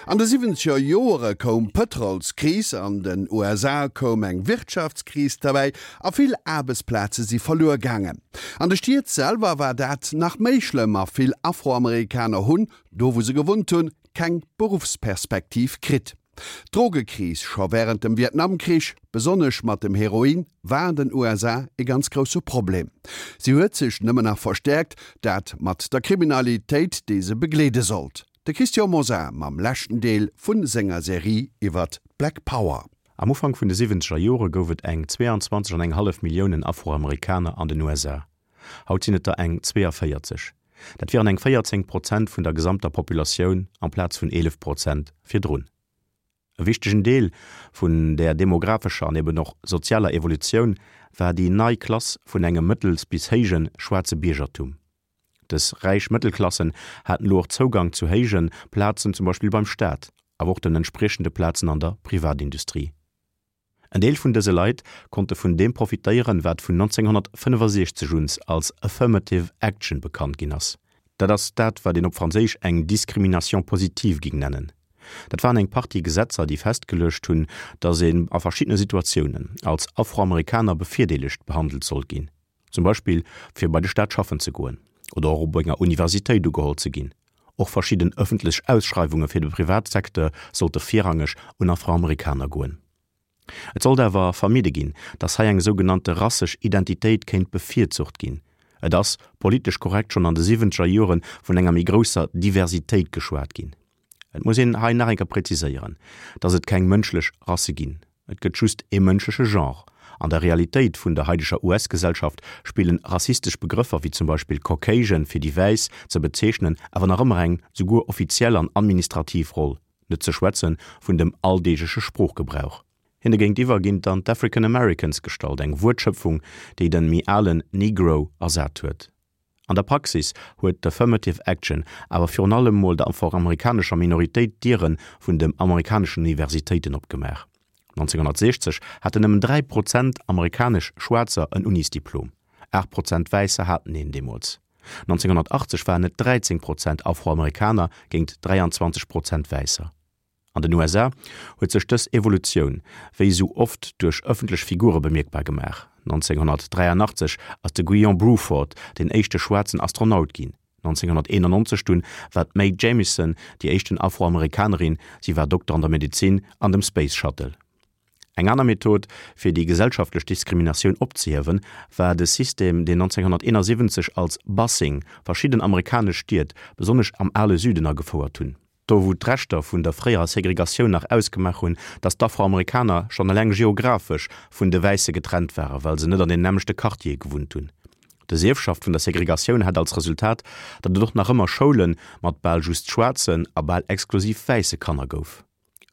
An de siwwenzeger Joere koum d'Pëtrolskris, an den USA koum eng Wirtschaftskris derbäi a vill Aarbechtsplaze si verluer gaangen. An de Stied selwer war dat nach méi schlëmm a vill Afroamerikaner hunn, do wou se gewunnt hunn, keng Beruffsperspektiv kritt. D'Drogekris scho wärend dem Vietnamkrich, besonnesch mat dem Heroin, war an den USA e ganz grousse Problem. Si huet sech nëmmen nach verstäerkt, dat mat der Kriminalitéit, déi se begleede sollt. De Christian Mosar mam leschten Deel vu senger Serie iwwert d'Black Power. Am Ufank vun de siwwenzeger Jore gouf et eng 22 an eng hallef Milliounen Afroamerikaner an den USA. Haut sinn et der eng 42. Dat wieren eng 14 Prozent vun der gesamter Populatioun amplaz vun 11 Prozent virdrun. E wichtegen Deel vun där demographescher an eben och sozialer Evolutioun war déi nei Klass vun engem mëttels bis héije schwaarze Biergertum. Dës räich Mëttelklassen haten elo och Zougang zu héije Plazen, zum Beispill beim Staat, awer och den entspriechende Plazen an der Privatindustrie. En Deel vun dëse Leit konnte vun deem profitéieren, wat vun 1965 un als Affirmative Action bekannt ginn ass. Dat ass dat, wat een op Franséisch eng Discrimination positive ging nennen. Dat waren eng Partie Gesetzer, déi festgeluecht hunn, datt een a verschiddene Situatiounen als Afroamerikaner bevirdeelegt behandelt sollt ginn. Zum Beispill fir bei de Staat schaffen ze goen oder och op enger Universitéit ugeholl ze ginn. Och verschidden ëffentlech Ausschreiwunge fir de Privatsecteur sollte virrangeg un Afroamerikaner goen. Et sollt awer vermidde ginn, datt hei eng sougenannte rassesch Identitéit kéint bevirzucht ginn. Et ass, politesch korrekt, schonn an de siwwenzeger Jore vun enger méi grousser Diversitéit geschwat ginn. Et muss een hei nach eng Kéier präziséieren, dass et keng mënschlech Rasse ginn. Et gëtt just ee mënschleche Genre. An der Realitéit vun der haideger US-Gesellschaft spillen rassistesch Begrëffer wéi zum Beispill Caucasian fir déi Wäiss ze bezeechnen awer nach ëmmer eng souguer offiziell an administrativ Roll, net ze schwätze vun dem alldeegleche Sproochgebrauch. Hinne géintiwwer ginn dann d'African Americans gestallt, eng Wuertschöpfung, déi den méi alen Negro ersat huet. An der Praxis huet d'Affirmative Action awer virun allem mol der afroamerikanescher Minoritéit d'Diere vun dem amerikaneschen Universitéiten opgemaach. 1960 haten nëmmen 3 Prozent amerikanesch Schwaarzer en Unisdiplom, 8 Prozent Wäisser haten een deemools. 1980 waren et 13 Prozent Afroamerikaner géint 23 Prozent Wäisser. An den USA huet sech dës Evolutioun, wéi esou oft, duerch ëffentlech Figure bemierkbar gemaach. 1983 ass de Guion Bluford deen éischte schwaarzen Astronaut ginn. 1991 dunn war d'Mae Jamison déi éischten Afroamerikanerin, si war Dokter an der Medezin, an dem Space Shuttle. Eng aner Method, fir déi gesellschaftlech Diskriminatioun opzehiewen, war de System, deen 1971 als Busing verschidden amerikanesch Stied, besonnesch am ale Süden, agefouert hunn. Do wou d'Reschter vun der fréierer Segregatioun nach ausgemaach hunn, datt d'Afroamerikaner schonn eleng geographesch vun de Wäisse getrennt waren, well se net an den nämmlechte Quartiere gewunnt hunn. Dës Ierfschaft vun der Segregatioun hat als Resultat, datt et och nach ëmmer Schoule mat bal just schwaarzen a bal exklusiv wäisse Kanner gouf.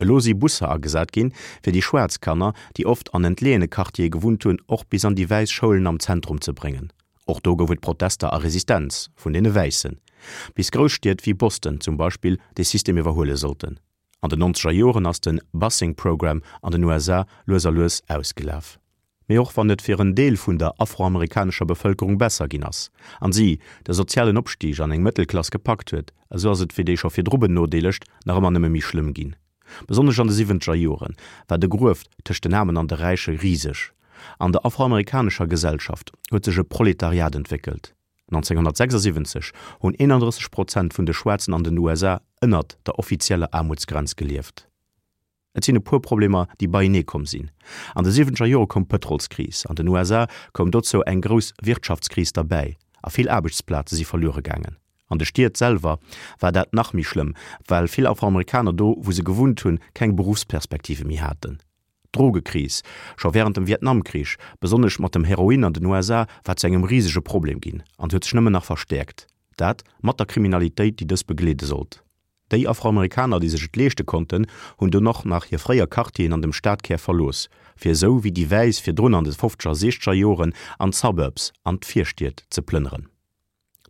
Elo si Busser agesat ginn, fir déi schwaarz Kanner, déi oft an entleeëne Quartiere gewunnt hunn, och bis an déi wäiss Schoulen am Zentrum ze bréngen. Och do gouf et Protester a Resistenz vun deene Wäissen, bis grouss Stied wéi Boston zum Beispill dee System iwwerhuele sollten. An den nonzeger Joren ass de Busing Program an den USA lues a lues ausgelaf. Mee och wann et fir en Deel vun der afroamerikanescher Bevëlkerung besser ginn ass, an si de sozialen Opstig an eng Mëttelklass gepackt huet, esou ass et fir déi scho virdru Benodeelegt nach ëmmer nëmme méi schlëmm ginn. Besonnesch an de siwwenzeger Jore war de Grueft tëscht den Aarmen an de Räiche riseg. An der afroamerikanescher Gesellschaft huet sech e Proletariat entwéckelt. 1976 hunn 31 Prozent vun de Schwaarzen an den USA ënnert der offizieller Aarmutsgrenz gelieft. Et sinn e puer Problemer, déi beienee komm sinn. An de siwwenzeger Jore koum d'Pëtrolskris, an den USA koum dozou eng grouss Wirtschaftskris derbäi a vill Aarbechtsplaze si verluere gaangen. An de Stied selwer war dat nach méi schlëmm, well vill Afroamerikaner do, wou se gewunnt hunn, keng Beruffsperspektive méi haten. D'Drogekris, scho wärend dem Vietnamkrich, besonnesch mat dem Heroin an den USA, war zu engem risege Problem ginn an huet sech nëmmen nach verstäerkt, dat mat der Kriminalitéit, déi dës begleede sollt. Déi Afroamerikaner, déi sech et leeschte konnten, hunn dunn och nach hir fréier Quartieren an dem Stadkär verlooss, fir esou wéi déi Wäiss virdrun an de fofzeger a siechzeger Joren an d'Suburbs, an d'Virstied ze plënneren.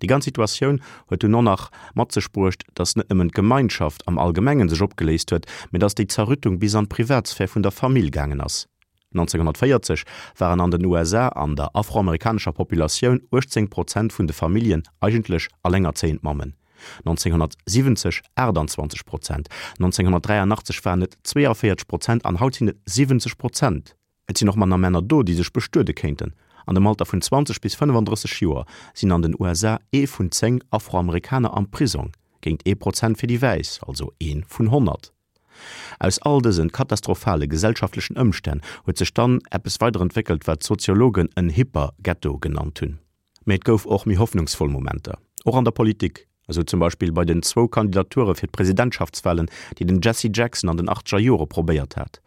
Déi ganz Situatioun huet dunn och nach mat sech bruecht, datt net nëmmen d'Gemeinschaft am Allgemengen sech opgeléist huet, mä datt déi Zerrüttung bis an d'Privatsphär vun der Famill gaangen ass. 1940 waren an den USA an der afroamerikanescher Populatioun 18 Prozent vun de Familljen eigentlech allengerzéiend Mammen. 1970 28 Prozent, 1983 waren et 42 Prozent an haut sinn et 70 Prozent. Et sinn och manner Männer do, déi sech bestuede kéinten. An dem Alter vun 20 bis 35 Joer sinn an den USA ee vun 10 Afroamerikaner am Prisong, géint ee Prozent fir déi Wäiss, also ee vun 100. Aus all dësen katastrophale gesellschaftlechen Ëmstänn huet sech dann eppes weiderentwéckelt, wat d'Soziologen en Hyper-Ghetto genannt hunn. Mee et gouf och méi hoffnungsvoll Momenter, och an der Politik, esou zum Beispill bei den zwou Kandidature fir d'Presidentschaftswalen, déi den Jesse Jackson an den achtzeger Jore probéiert hat.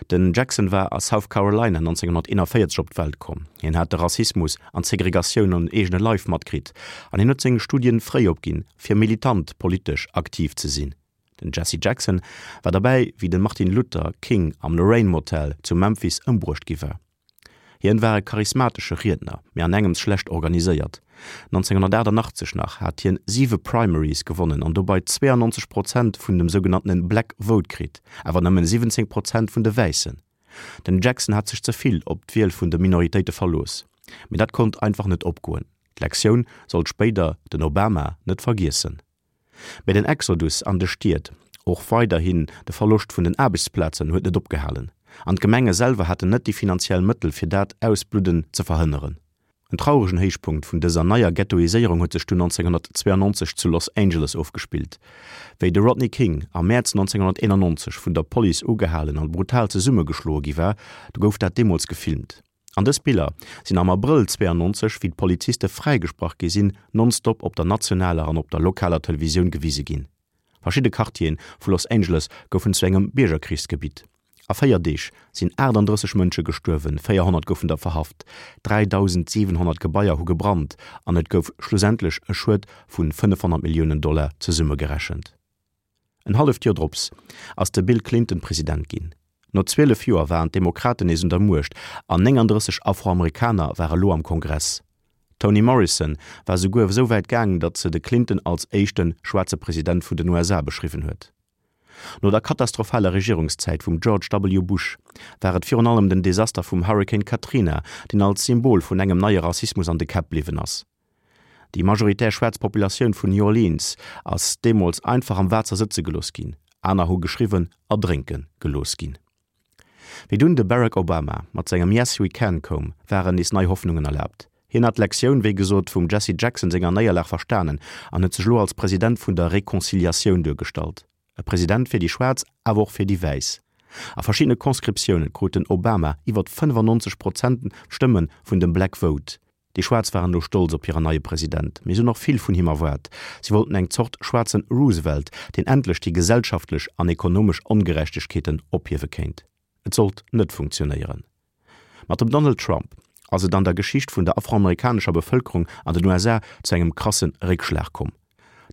Den Jackson war a South Carolina 1941 op d'Welt komm. Hien hat de Rassismus an d'Segregatioun um eegene Leif matkritt an hien huet seng Studien fréi opginn, fir militant politesch aktiv ze sinn. Den Jesse Jackson war derbäi, wéi de Martin Luther King am Lorraine Motel zu Memphis ëmbruecht gi war. Hien war e charismatesche Riedner, mee an engems schlecht organiséiert. 1988 nach hat hien siwe Primaries gewonnen an dobei 92 Prozent vun dem sougenanntene Black Vote kritt, awer nëmmen 17 Prozent vun de Wäissen. Den Jackson hat sech ze vill op d'Wiel vun de Minoritéite verlooss. Mee dat konnt einfach net opgoen. D'Lektioun sollt spéider den Obama net vergiessen. Mee den Exodus an de Stied, och weiderhin de Verloscht vun den Aarbechtsplazen huet net opgehalen. An d'Gemenge selwer haten net déi finanziell Mëttel fir dat Ausbludden ze verhënneren. En trauregen Héichpunkt vun dëser neier Ghettoiséierung huet sech dunn 1992 zu Los Angeles ofgespillt, wéi de Rodney King am Mäerz 1991 vun der Police ugehalen an brutal zesummegeschloe gi war. Du gouf dat deemools gefilmt. An dës Biller sinn am Abrëll 92, wéi d'Poliziste fräigesprach gi sinn, nonstop op der nationaler an op der lokaler Televisioun gewise ginn. Verschidde Quartiere vu Los Angeles goufen zu engem Biergerkrichsgebitt. A 4 Deeg sinn 38 Mënsche gestuerwen, 400 goufen der verhaft, 3.700 Gebaier hu gebrannt an et gouf schlussendlech e Schued vu 500 Milliounen Dollar zesummegerechent. En halleft Joer drops ass de Bill Clinton President ginn. No 12 Joer waren d'Demokraten nees un der Muecht an 39 Afroamerikaner ware lo am Kongress. D'Toni Morrison war souguer esou wäit gaang, datt se de Clinton als éischte schwaarze President vun den USA beschriwwen huet. No der katastrophaler Regierungszäit vum George W. Bush war et virun allem den Desaster vum Hurrikan Katrina, deen als Symbol vun engem neie Rassismus an de Käpp bliwwen ass. Déi majoritär schwaarz Populatioun vun New Orleans ass deemools einfach am Waasser sëtze gelooss ginn, aner hu geschriwwen erdrénke gelooss ginn. Wéi dunn de Barack Obama mat sengem Yes we can koum, waren nees nei Hoffnungen erlaabt. Hien hat d'Lektioun, wéi gesot, vum Jesse Jackson senger Néierlag verstanen an huet sech elo als President vun der Reconciliatioun duergestallt. E President fir déi Schwaarz, awer och fir déi Wäiss. A verschiddene Conscriptioune krut den Obama iwwert 95 Prozent Stëmme vun dem Black Vote. Déi Schwaarz waren elo stolz op hiren neie President, mee se hunn och vill vun him erwaart. Si wollten eng Zort schwaarzen Roosevelt, deen endlech déi gesellschaftlech an ekonomesch Ongerechtegkeeten ophiewe kéint. Et sollt net funktionéieren. Mat dem Donald Trump ass et an der Geschicht vun der afroamerikanescher Bevëlkerung an den USA zu engem krasse Réckschlag komm.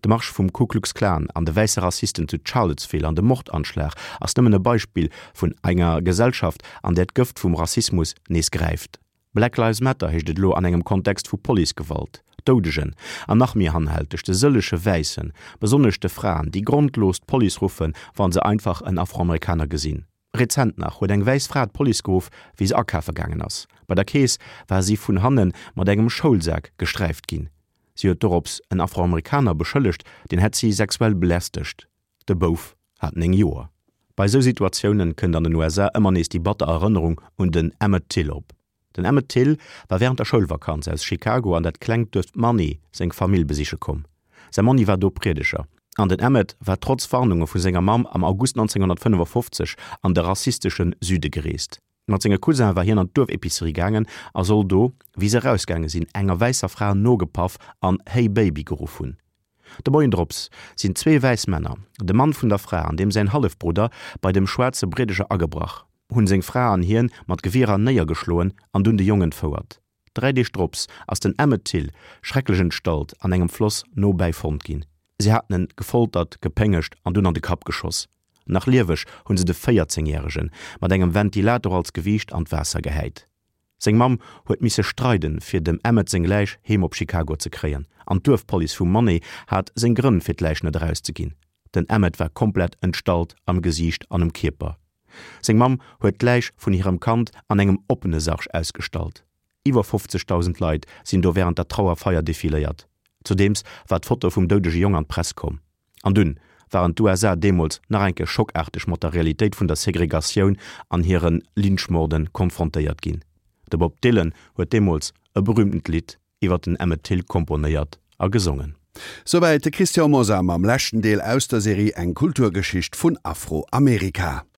De Marsch vum Ku Klux Klan an de wäisse Rassisten zu Charlottesville an de Mordanschlag ass nëmmen e Beispill vun enger Gesellschaft, an där d'Gëft vum Rassismus nees gräift. Black Lives Matter heescht et elo an engem Kontext vu Policegewalt, Doudegen an nach méi hanhälteg, de sëllege Wäissen, besonnesch de Fraen, déi grondlos d'Police ruffen, wa se einfach en Afroamerikaner gesinn. Rezent nach huet eng wäiss Fra d'Police geruff, wéi se akafe gaangen ass. Bei der Kees war si vun hanne mat engem Schoulsak gesträift ginn. Si huet dorops en Afroamerikaner beschëllegt, deen hätt si sexuell belästegt. De Bouf hat 9 Joer. Bei esou Situatiounen kënnt an den USA ëmmer nees déi batter Erënnerung un den Emmett Till op. Den Emmett Till war wärend der Schoulvakanz aus Chicago an dat klengt Duerf Money seng Famill besiche komm. Säi Monni war do Priedeger an den Emmett war trotz Warnunge vu senger Mamm am August 1955 an de rassistesche Süde gereest. Mat senge Cousin war hien an d'Duerfepicerie gaangen a soll do, wéi se erausgaange sinn, enger wäisser Fra nogepaff an Hey Baby geruff hunn. De Moien drops sinn zwee wäiss Männer, de Mann vun der Fra an deem säin Hallefbrudder, bei dem schwaarze Briedeger agebrach, hunn seng Fra an hien mat Gewierer néiergeschloen an dunn de Jong entfouert. Dräi Deeg drops ass den Emmett Till schrecklech entstallt an engem Floss nobäi fonnt ginn. Si haten en gefoltert, gepéngegt an dunn an de Kapp geschoss. Nach lieweg hunn se de 14 Järegen mat engem Ventilator als Gewiicht an d'Waasser gehäit. Seng Mamm huet misse streiden, fir dem Emmett seng Läich heem op Chicago ze kréien, an d'Duerfpolice vu Money hat seng Grënn fir d'Läich net erauszeginn. Den Emmett war komplett entstallt am Gesiicht an um Kierper. Seng Mamm huet d'Läich vun hirem Kand an engem oppene Sarg ausgestallt. Iwwer 50.000 Leit sinn do wärend der Trauerfeier defiléiert. Zudeems war d'Foto vum doudege Jong an d'Press komm. An dunn waren d'USA deemools nach eng Kéier schockaarteg mat der Realitéit vun der Segregatioun an hire Lynchmorden konfrontéiert ginn. De Bob Dylan huet deemools e berühmtent Lidd iwwer den Emmett Till komponéiert a gesongen. Souwäit de Christian Mosar mam leschten Deel aus der Serie Eng Kulturgeschicht vun Afroamerika.